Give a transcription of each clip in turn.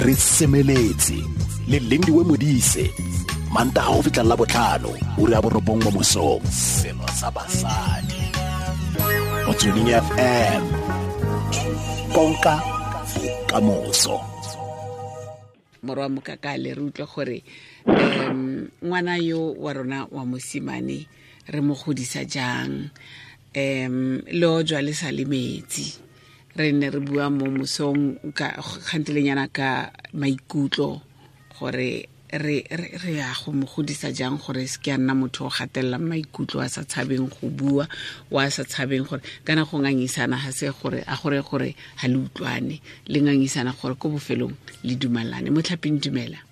Re semeletse le Lindiwe Modise, Mantaga go fitlha la botlhano, ura ya 9 mo mosong. Selo sa basadi. Motsweding FM. Konka bokamoso. Morwa Mokakale, re utlwe gore ngwana yo wa rona wa mosimane re mo godisa jang, le o jwa le sa le metsi. Re ne re bua mo mosong ka kgantelenyana ka maikutlo gore re ya go mo godisa jang gore se ke a nna motho o gatellang maikutlo, a sa tshabeng go bua, wa sa tshabeng gore kana go ngangisana ga se gore a gore gore ha le utlwane, le ngangisana gore ko bofelong le dumalane. Motlhaping, dumela.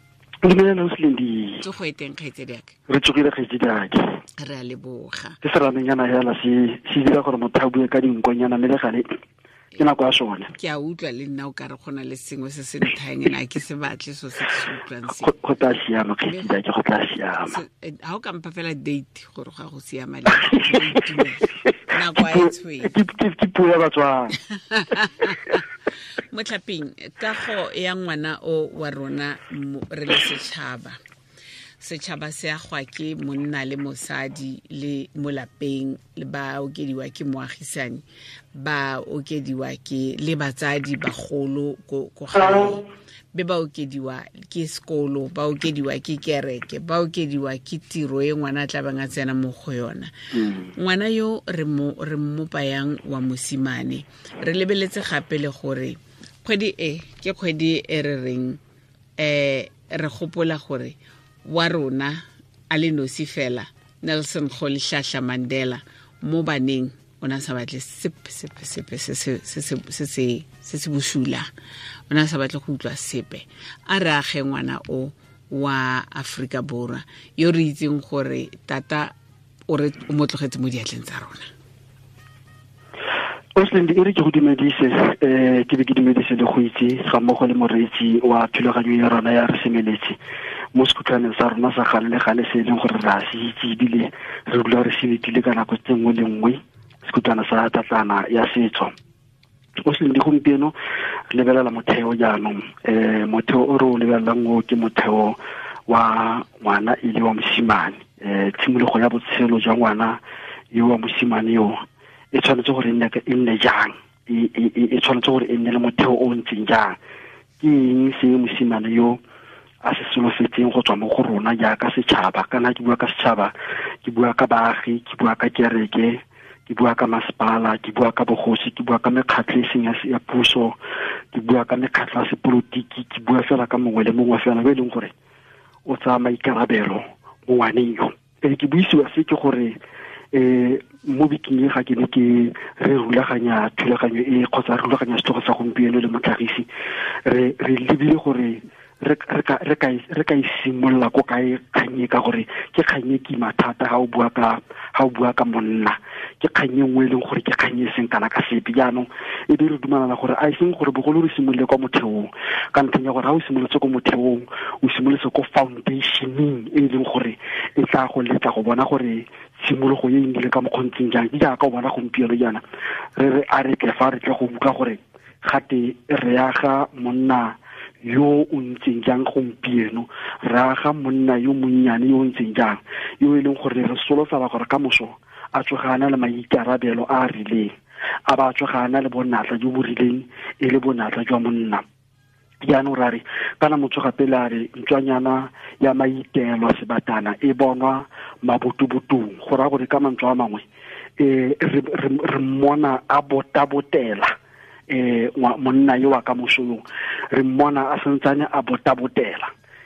Dumela, Ausi. Tsogo e teng, kgaitsedi aka? Re tsogile, kgaitsedi ake. Re a leboga. Ke seramenyana hela se dira gore motho a bue ka dinkonyana, mme le gale ke nako ya sone. Ke a utlwa le nna o ka re go na le sengwe se se nthayang, ene a ke se batle so se ke se utlwang se. Go tla siama, kgaitsedi ake, go tla siama. Ha o ka mpha fela date gore ga go siama le nako a e tshwere. Ke puo ya Batswana. Motlhaping, kago ya ngwana o wa rona re le setšhaba. Setšhaba se agwa ke monna le mosadi le mo lapeng, le ba okediwa ke moagisani, ba okediwa ke le batsadi bagolo ko gae, be ba okediwa ke sekolo, ba okediwa ke kereke, ba okediwa ke tiro e ngwana a tla bang a tsena mo go yona. Ngwana yo re mmopa yang wa mosimane, re lebeletse gape le gore kgwedi e ke kgwedi e re reng, re gopola gore wa rona a le nosi fela Nelson Rolihlahla Mandela mo baneng o na sa batle sepe sepe sepe se se se se se se se bosula, o na sa batle go utlwa sepe. A re age ngwana o wa Afrika Borwa yo re itseng gore tata o re o mo tlogetse mo diatleng tsa rona. Ausi, e re ke go dumedise, ke be ke dumedise le go itse ga mmogo le moreetsi wa thulaganyo ya rona ya Re Semeletse mo sekhutlwaneng sa rona sa gale le gale se e leng gore re a se itse ebile re dula re se letile ka nako tse nngwe le nngwe, sekhutlwana sa tlatlana ya setso. Ausi, gompieno re lebelela motheo jaanong, motheo o re o lebelelang o ke motheo wa ngwana e le wa mosimane. Tshimologo ya botshelo jwa ngwana yo wa mosimane yo e tshwanetse gore e nne jang, e tshwanetse gore e nne le motheo o ntseng jang. Ke eng se mosimane yo a se solofetseng go tswa mo go rona jaaka setšhaba? Kana ke bua ka setšhaba, ke bua ka baagi, ke bua ka kereke, ke bua ka masepala, ke bua ka bogosi, ke bua ka mekgatlho e seng ya puso, ke bua ka mekgatlho ya sepolotiki, ke bua fela ka mongwe le mongwe fela yo e leng gore o tsaya maikarabelo mo ngwaneng yo. Ke buisiwa se ke gore mo bekeng e ga ke ne ke re rulaganya thulaganyo e kgotsa re rulaganya setlhogo sa gompieno le motlhagisi, re lebile gore re ka e simolola ko kae kgang e, ka gore ke kgang e kima thata ha o bua ka monna, ke kgang e nngwe e leng gore ke kgang e seng kana ka sepe. Jaanong e be re dumalana gore a e seng gore bogolo re simolole kwa motheong, ka ntlheng ya gore ha o simolotse ko motheong, o simolotse ko foundationeng e leng gore e tla go letla go bona gore tshimologo e nnile ka mokgontseng jang. Ke jaaka o bona gompieno jaana re re a re tle fa re tle go utlwa gore gate re aga monna yo o ntseng jang gompieno, re aga monna yo monnyane yo o ntseng jang, yo e leng gore re solofela gore ka moso a tsoga a na le maikarabelo a a rileng, a ba tsoga a na le bonatla jo bo rileng e le bonatla jwa monna. Jaanong ra re kana motho gape le a re ntswanyana ya maitelo sebatana e bonwa mabotobotong, go raya gore ka mantswe a mangwe re mmona a botabotela monna yo wa ka moso yo, re mmona a santsane a botabotela,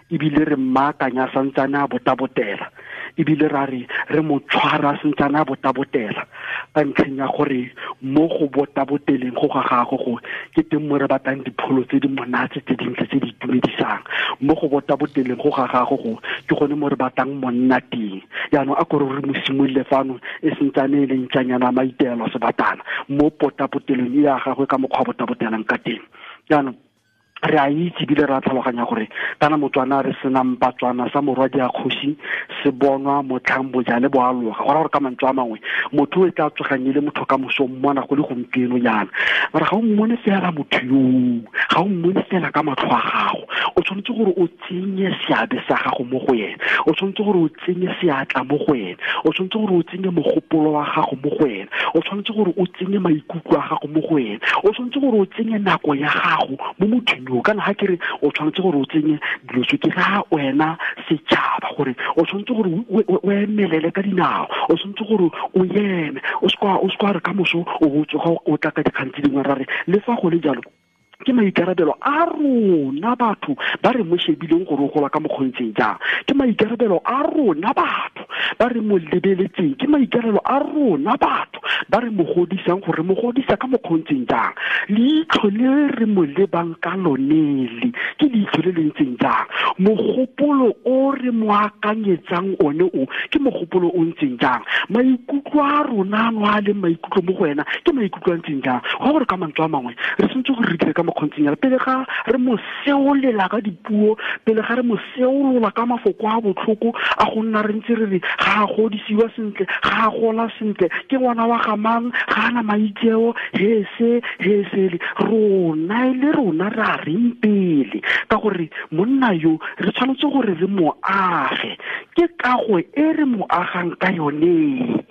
ebile re mmaakanya a santsane a botabotela, ebile ra re re mo tshwara a santsane a botabotela, ka ntlheng ya gore mo go botaboteleng go ga gagwe go ke teng mo re batlang dipholo tse di monate tse dintle tse di itumedisang. Mo go botaboteleng go ga gagwe go ke gone mo re batlang monna teng. Jaanong a kore re mo simolole fano e santsane e le ntlanyana maitelo sebatana mo potapotelong e ya gagwe ka mokgwa botabotelang ka teng. Jaanong re a itse ebile re a tlhaloganya gore kana Motswana re senang Batswana sa morwadi a kgosi se bonwa motlhang bojale bo aloga. Go raya gore ka mantswe a mangwe motho o e tla tsogang e le motho ka moso mmona go le gompieno jaana, mara ga o mmone fela motho yoo, ga o mmone fela ka matlho a gago, O tshwanetse gore o tsenye seabe sa gago mo go ene, o tshwanetse gore o tsenye seatla mo go ene, o tshwanetse gore o tsenye mogopolo wa gago mo go ene, o tshwanetse gore o tsenye maikutlo a gago mo go ene, o tshwanetse gore o tsenye nako ya gago mo mothong yo. Kana ga ke re o tshwanetse gore o tsenye dilo tse, ke ra wena setšhaba gore o tshwanetse gore o emelele ka dinao, o tshwanetse gore o eme, o se re ka moso o bo tsoga o tla ka dikgang tse dingwe. Ra re le fa go le jalo ke maikarabelo a rona batho ba re mo shebileng gore o gola ka mokgontseng jang, ke maikarabelo a rona batho ba re mo lebeletseng, ke maikarabelo a rona batho ba re mo godisang gore mo godisa ka mokgontseng jang, leitlho le re mo lebang ka lonele ke leitlho le le ntseng jang, mogopolo o re mo akanyetsang one o ke mogopolo o ntseng jang, maikutlo a rona ano a leng maikutlo mo go wena ke maikutlo a ntseng jang. Go gore ka mantswe a mangwe re tshwanetse gore re dire ka mokgontseng jalo pele ga re mo seolela ka dipuo, pele ga re mo seolola ka mafoko a botlhoko a go nna re ntse re re ga a godisiwa sentle, ga a gola sentle, ke ngwana wa ga mang, ga ana maitseo, he se he sele. Rona e le rona re a reng pele, ka gore monna yo re tshwanetse gore re mo age, ke kago e re mo agang ka yone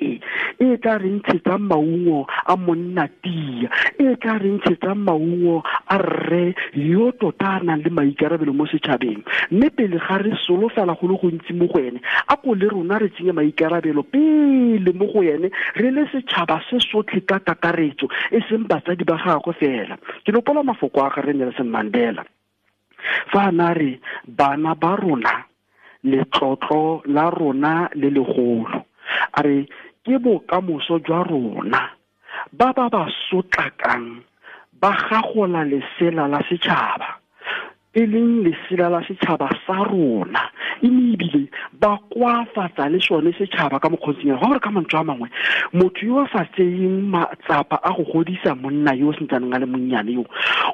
e tla re ntshetsang maungo a monna tia, e tla re ntshetsang maungo a rre yo tota a nang le maikarabelo mo setšhabeng. Mme pele ga re solofela go le gontsi mo go ene, a ko le rona re tsenye maikarabelo pele mo go ene, re le setšhaba se sotlhe ka kakaretso, e seng batsadi ba gagwe fela. Ke nopola mafoko a gagwe Nelson Mandela fa a na re bana ba rona letlotlo la rona le legolo, a re ke bokamoso jwa rona, ba ba ba sotlakang ba gagola lesela la setšhaba, e leng lesela la setšhaba sa rona, mme ebile ba koafatsa le sone setšhaba ka mokgontseng. Go gore ka mantswe a mangwe, motho yo a sa tseyeng matsapa a go godisa monna yo o sentsaneng a le monnyane yo,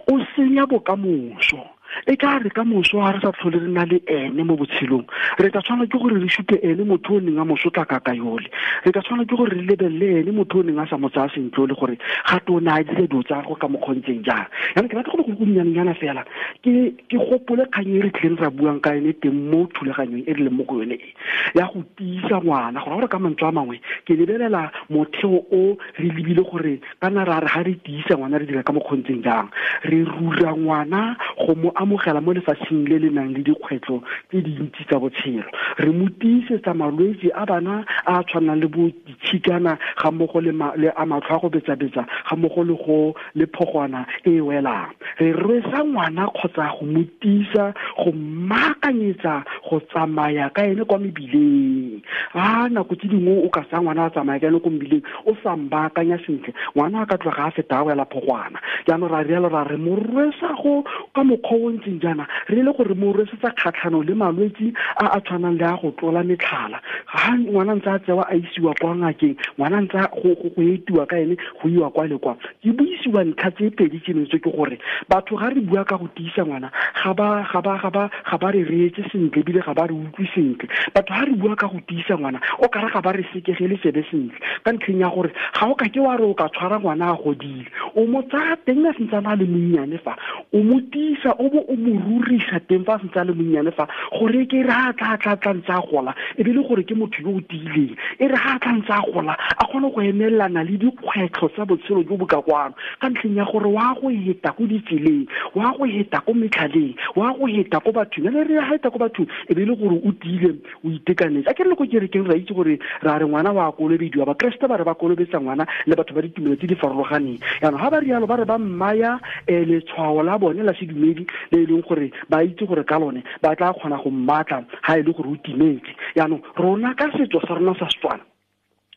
o senya bokamoso. E ka re ka moso ga re sa tlhole re na le ene mo botshelong, re tla tshwanela ke gore re supe ene motho o neng a mo sotlaka ka yole, re tla tshwanela ke gore re lebelele ene motho o neng a sa mo tsaya sentle le gore gape o ne a dira dilo tsa gagwe ka mokgontseng jang. Jaanong ke batla go le go nnyanenyana fela ke gopole kgang e re tlileng ra buang ka yone teng mo thulaganyong e re leng mo go yone e ya go tiisa ngwana. Gore gore ka mantswe a mangwe ke lebelela motheo o re lebile gore kana ra re ga re tiisa ngwana re dira ka mokgontseng jang, re rura ngwana go mo amogela mo lefatsheng le le nang le dikgwetlho tse dintsi tsa botshelo, re mo tiisetsa malwetse a bana a tshwanang le bo ditshikana ga mmogo le a matlho a go betsa-betsa ga mmogo le go le phogwana e welang. Re rwesa ngwana kgotsa go mo tiisa, go mmaakanyetsa go tsamaya ka ene kwa mebileng. A nako tse dingwe o ka tsaya ngwana a tsamaya ka ene ko mebileng o sa mbaakanya sentle, ngwana a ka tloga a feta a wela phogwana. Jaanong ra rialo ra re mo rwesa go ka mokgwa o ntseng jaana, re le gore mo rwesetsa kgatlhanong le malwetse a a tshwanang le a go tlola metlhala. Ga ngwana ntse a tsewa a isiwa kwa ngakeng, ngwana ntse go etiwa ka ene go iwa kwa le kwa. Ke buisiwa ntlha tse pedi tseno tse ke gore batho ga re bua ka go tiisa ngwana ga ba re reetse sentle ebile ga ba re utlwe sentle. Batho ga re bua ka go tiisa ngwana o kare ga ba re sekegele tsebe sentle, ka ntlheng ya gore ga o ka ke wa re o ka tshwara ngwana a godile, o mo tsaya teng a sentse a le monnyane fa, o mo tiisa o bo o mo rurisa teng fa a sentse a le monnyane fa, gore ke re ha tla ntse a gola e be le gore ke motho yo o tiileng, e re ha tla ntse a gola a kgone go emelana le dikgwetlho tsa botshelo jo bo ka kwano, ka ntlheng ya gore wa go heta ko ditseleng, wa go heta ko metlhaleng, wa go heta ko bathong. Ene re heta ko bathong e be le gore o tiile, o itekanetse. A ke re le ko kerekeng ra itse gore ra re ngwana wa kolobediwa, bakreste ba re ba kolobetsa ngwana le batho ba ditumelo tse di farologaneng. Jaanong ga ba rialo ba re ba mmaya letshwao la bone la sedumedi le e leng gore ba itse gore ka lone ba tla kgona go mmatla ga e le gore o timetse. Jaanong rona ka setso sa rona sa Setswana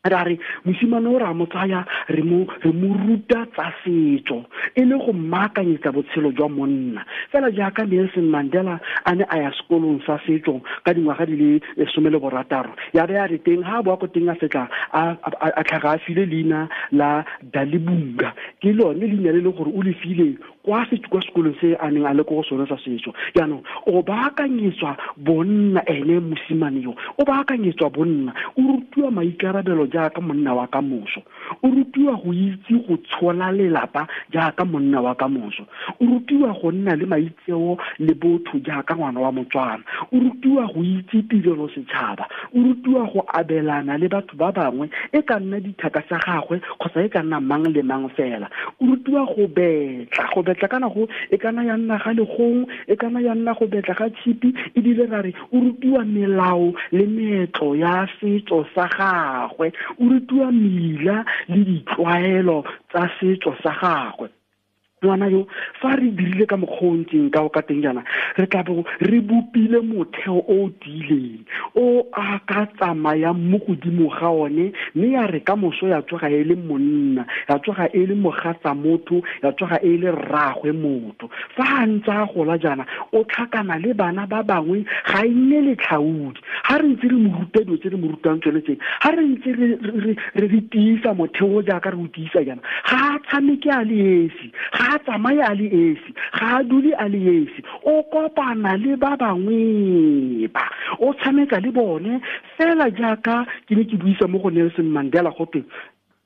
ra re mosimane o re a mo tsaya re mo ruta tsa setso e le go mmaakanyetsa botshelo jwa monna, fela jaaka Nelson Mandela a ne a ya sekolong sa setso ka dingwaga di le 16, ya be a re teng ha a boa ko teng a fetla a tlhaga a file leina la Dalibunga, ke lone leina le le gore o le file kwa sekolong se a neng a le ko go sone sa setso. Jaanong o baakanyetswa bonna ene mosimane yo, o baakanyetswa bonna, o rutiwa maikarabelo jaaka monna wa ka moso, o rutiwa go itse go tshola lelapa jaaka monna wa ka moso, o rutiwa go nna le maitseo le botho jaaka ngwana wa Motswana, o rutiwa go itse tirelo setšhaba, o rutiwa go abelana le batho ba bangwe, e ka nna dithaka tsa gagwe kgotsa e ka nna mang le mang fela. O rutiwa go betla kana go e kana ya nna ga legong, e kana ya nna go betla ga tshipi, ebile ra re o rutiwa melao le meetlo ya setso sa gagwe, o rutiwa mela le ditlwaelo tsa setso sa gagwe. Ngwana yo fa re dirile ka mokgwa o ntseng ka o ka teng jaana, re tla bo re bopile motheo o o tiileng o a ka tsamayang mo godimo ga one, mme ya re ka moso ya tsoga e le monna, ya tsoga e le mogatsa motho, ya tsoga e le rraagwe motho. Fa a ntse a gola jaana, o tlhakana le bana ba bangwe, ga e nne letlhaodi. Ha re ntse re mo ruta dilo tse re mo rutang tsone tse, ha re ntse re tiisa motheo jaaka re o tiisa jaana, ga a tshameke a le esi, ga a tsamaye a le esi, ga a dule a le esi, o kopana le ba bangwe ba, o tshameka le bone fela jaaka ke ne ke buisa mo go Nelson Mandela gotwe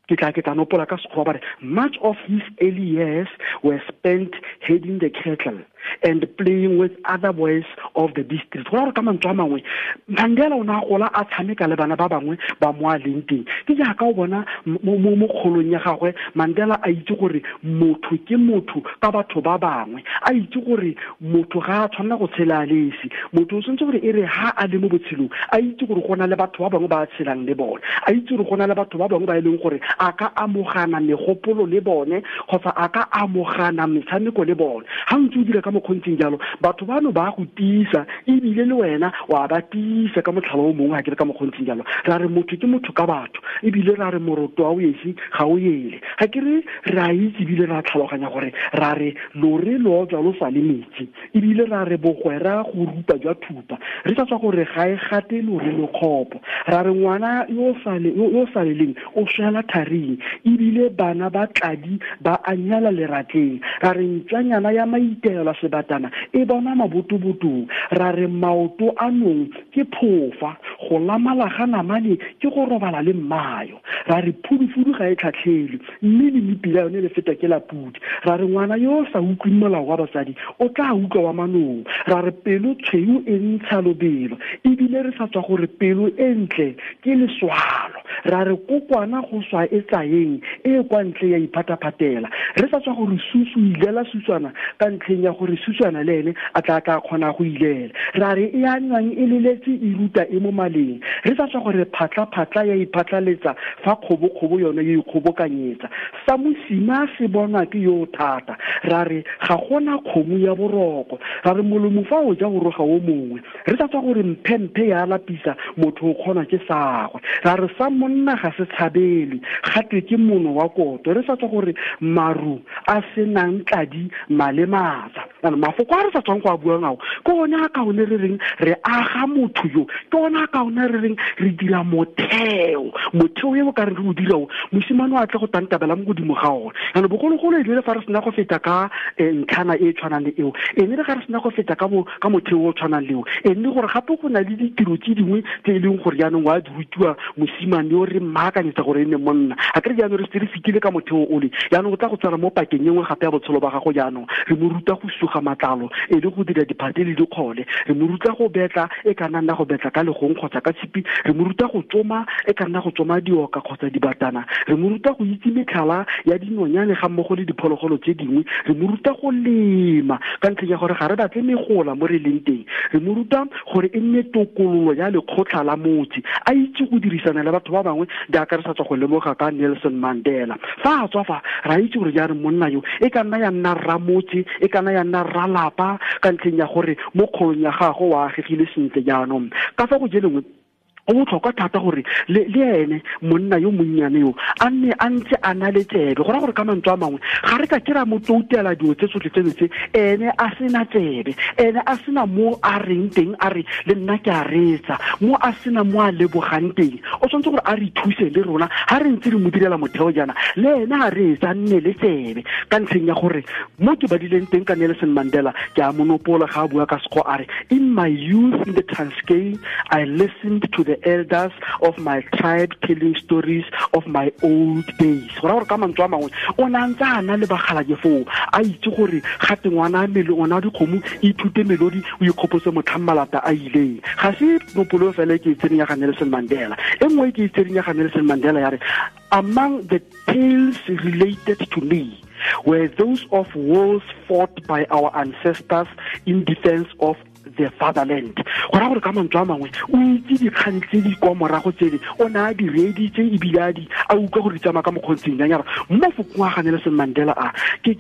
ke tla nopola ka Sekgowa ba re, much of his early years were spent heading the cattle and playing with other boys of the district. Go ra gore ka mantswe a mangwe, Mandela o ne a gola a tshameka le bana ba bangwe ba mo a leng teng. Ke jaaka o bona mo kgolong ya gagwe, Mandela a itse gore motho ke motho ka batho ba bangwe, a itse gore motho ga a tshwanela go tshela a le esi, motho o tshwanetse gore e re ha a le mo botshelong a itse gore go na le batho ba bangwe ba a tshelang le bone, a itse gore go na le batho ba bangwe ba e leng gore a ka amogana megopolo le bone kgotsa a ka amogana metshameko le bone. Ha ntse o dira ka mokgontseng jalo, batho bano ba go tiisa, ebile le wena wa ba tiisa ka motlhala o mongwe. Ha ke re ka mokgontseng jalo, ra re motho ke motho ka batho, ebile ra re moroto wa o esi ga o ele. Ga ke re re a itse ebile ra tlhaloganya gore ra re lore lo tswa lo sa le metsi, ebile ra re bogwera go rupa jwa thupa, re sa tswa gore ga e gate lore lo kgopo. Ra re ngwana yo sa leleng o swela tharing, ebile bana ba tladi ba anyala leratleng. Ra re ntswanyana ya maitelo sebatana e bona mabotobotong. Ra re maoto a nong ke phofa, go lamala ga namane ke go robala le mmayo. Ra re phudufudu ga e tlhatlhelwe, mme le mepila yone le feta ke la pudi. Ra re ngwana yo o sa utlweng molao wa basadi o tla utlwa wa manong. Ra re pelo tshweu e ntsha lobelo, ebile re sa tswa gore pelo e ntle ke leswalo. Ra re kokwana go swa e tsayeng e kwa ntle ya iphataphatela, re sa tswa gore susu ilela suswana ka ntlheng ya gore suswana le ene a tla kgona go ilela. Ra re e a nwang e leletse e ruta e mo maleng, re sa tswa gore phatla-phatla ya iphatlaletsa fa kgobo-kgobo yone e ikgobokanyetsa. Sa mosima se bonwa ke yo thata. Ra re ga gona kgomo ya boroko. Ra re molomo fa o ja go roga o mongwe, re sa tswa gore mphemphe ya lapisa motho o kgona ke sagwe. Ra re sa monna ga se tshabele, gatwe ke mono wa koto. Re sa tswa gore maru a senang tladi malematsa. Mafoko a re sa tswang go a buang ao ke one a kaone re reng re aga motho yo, ke one a kaone re reng re dira motheo e o ka reng re o dira o, mosimane o a tle go tantabela mo godimo ga one. Jaanong bogologolo e le fa re sena go feta ka ntlhana e tshwanang le eo, e ne re ga re sena go feta ka motheo o tshwanang le eo, e nne gore gape go na le ditiro tse dingwe tse e leng gore jaanong wa di rutiwa mosimane yo re mmaakanyetsa gore e nne monna. A kere jaanong re setse re fetile ka motheo ole, jaanong o tla go tswala mo pakeng e nngwe gape ya botshelo ba gago. Jaanong re mo ruta go suga matlalo e le go dira diphate le dikgole, re mo ruta go betla e ka nna go betla ka legong kgotsa ka tshipi, re mo ruta go tsoma e ka nna go tsoma dioka kgotsa dibatana, re mo ruta go itse metlhala ya dinonyane ga mmogo le diphologolo tse dingwe, re mo ruta go lema ka ntlheng ya gore ga re batle megola mo re leng teng, re mo ruta gore e nne tokololo ya lekgotlha la motse, a itse go dirisana le batho ba bangwe jaaka re sa tswa go lemoga ka Nelson Mandela. Fa a tswa fa ra itse gore jaanong monna yo e ka nna ya nna rramotse, e ka nna ya nna rralapa ka ntlheng ya gore mo kgolong ya gagwe o agegile sentle. Jaanong ka fa go jelengwe go botlhokwa thata gore le ene monna yo monnyane yo a nne a ntse a na le tsebe. Go raya gore ka mantswe a mangwe ga re ka ke ra mo toutela dilo tse tsotlhe tseno tse, ene a sena tsebe, ene a sena mo a reng teng a re le nna ke a reetsa, mo a sena mo a lebogang teng. O tshwanetse gore a re thuse le rona ga re ntse re mo direla motheo jaana, le ene a reetsa, a nne le tsebe ka ntlheng ya gore mo ke badileng teng ka Nelson Mandela ke a monopola ga a bua ka Sekgowa a re, in my youth in the Transkei I listened to the the elders of my tribe telling stories of my old days. Go raya gore ka mantswe a mangwe o ne a ntse a na le bagalake foo, a itse gore gate ngwana ngwana dikgomo ithute melodi o ikgopotse motlhang malata a ileng. Ga se nopolo fela ke e tsereng ya ga Nelson Mandela. E nngwe ke e tsereng ya ga Nelson Mandela ya re, among the tales related to me were those of wars fought by our ancestors in defense of the fatherland. Go raya gore ka mantswe a mangwe o itse dikgang tse di kwa morago tsele, o ne a di reeditse ebile a di a utlwa gore di tsamaya ka mokgontseng jang. Ya re mo fokong a ga Nelson Mandela a ke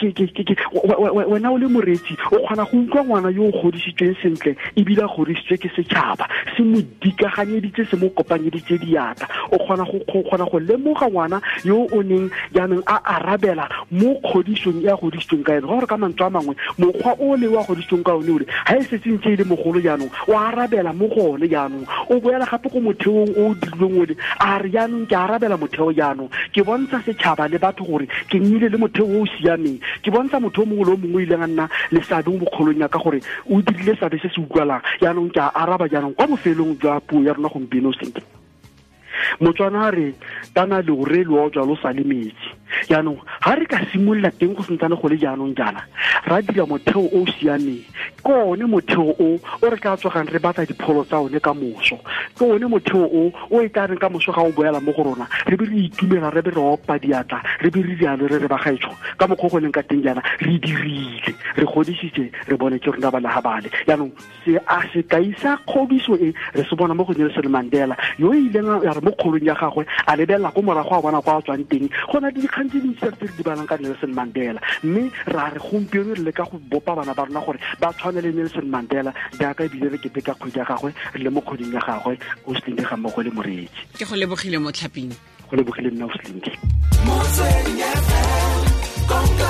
wena o le moreetsi o kgona go utlwa ngwana yo o godisitsweng sentle ebile a godisitswe ke setšhaba, se mo dikaganyeditse, se mo kopanyeditse diatla. O kgona go lemoga ngwana yo o neng jaanong a arabela mo kgodisong e a godisitsweng ka ene. Gore ka mantswe a mangwe mokgwa o le wa godisitsweng ka one ole ga e setse ntse e le mogolo jaanong o arabela mo go one jaanong, o boela gape ko motheong o o dirilweng ole, a re jaanong ke arabela motheo jaanong, ke bontsha setšhaba le batho gore ke nnile le motheo o o siameng, ke bontsha motho o mongwe le o mongwe o ileng a nna le seabe mo bokgolong ya ka gore o dirile seabe se se utlwalang. Jaanong ke a araba jaanong kwa bofelong jwa puo ya rona gompieno sentle. Motswana a re tana leore lo ojwa lo sa le metsi. Jaanong ga re ka simolola teng go sentsane go le jaanong jaana, ra dira motheo o o siameng, ke one motheo o o re tla tsogang re batla dipholo tsa one ka moso, ke one motheo o o e tla reng ka moso ga o boela mo go rona re be re itumela, re be re opa diatla, re be re rialo re re bagaetsho ka mokgwa go leng ka teng jaana re dirile, re godisitse, re bone ke rona ba naga bale. Jaanong se a sekai sa kgodiso e re se bona mo go Nelson Mandela yo ileng ya re mo kgolong ya gagwe a lebelela ko morago a bona kwa a tswang teng. Go na le dikgang tse dintsi tse re di balang ka Nelson Mandela, mme ra re gompieno re leka go bopa bana ba rona gore ba tshwane le Nelson Mandela jaaka ebile re keteka kgwedi ya gagwe, re le mo kgweding ya gagwe o Slindi ga mmogo le moreetsi. Ke go lebogile mo tlhaping. Go lebogile nna o Slindi. Motsweding FM, konka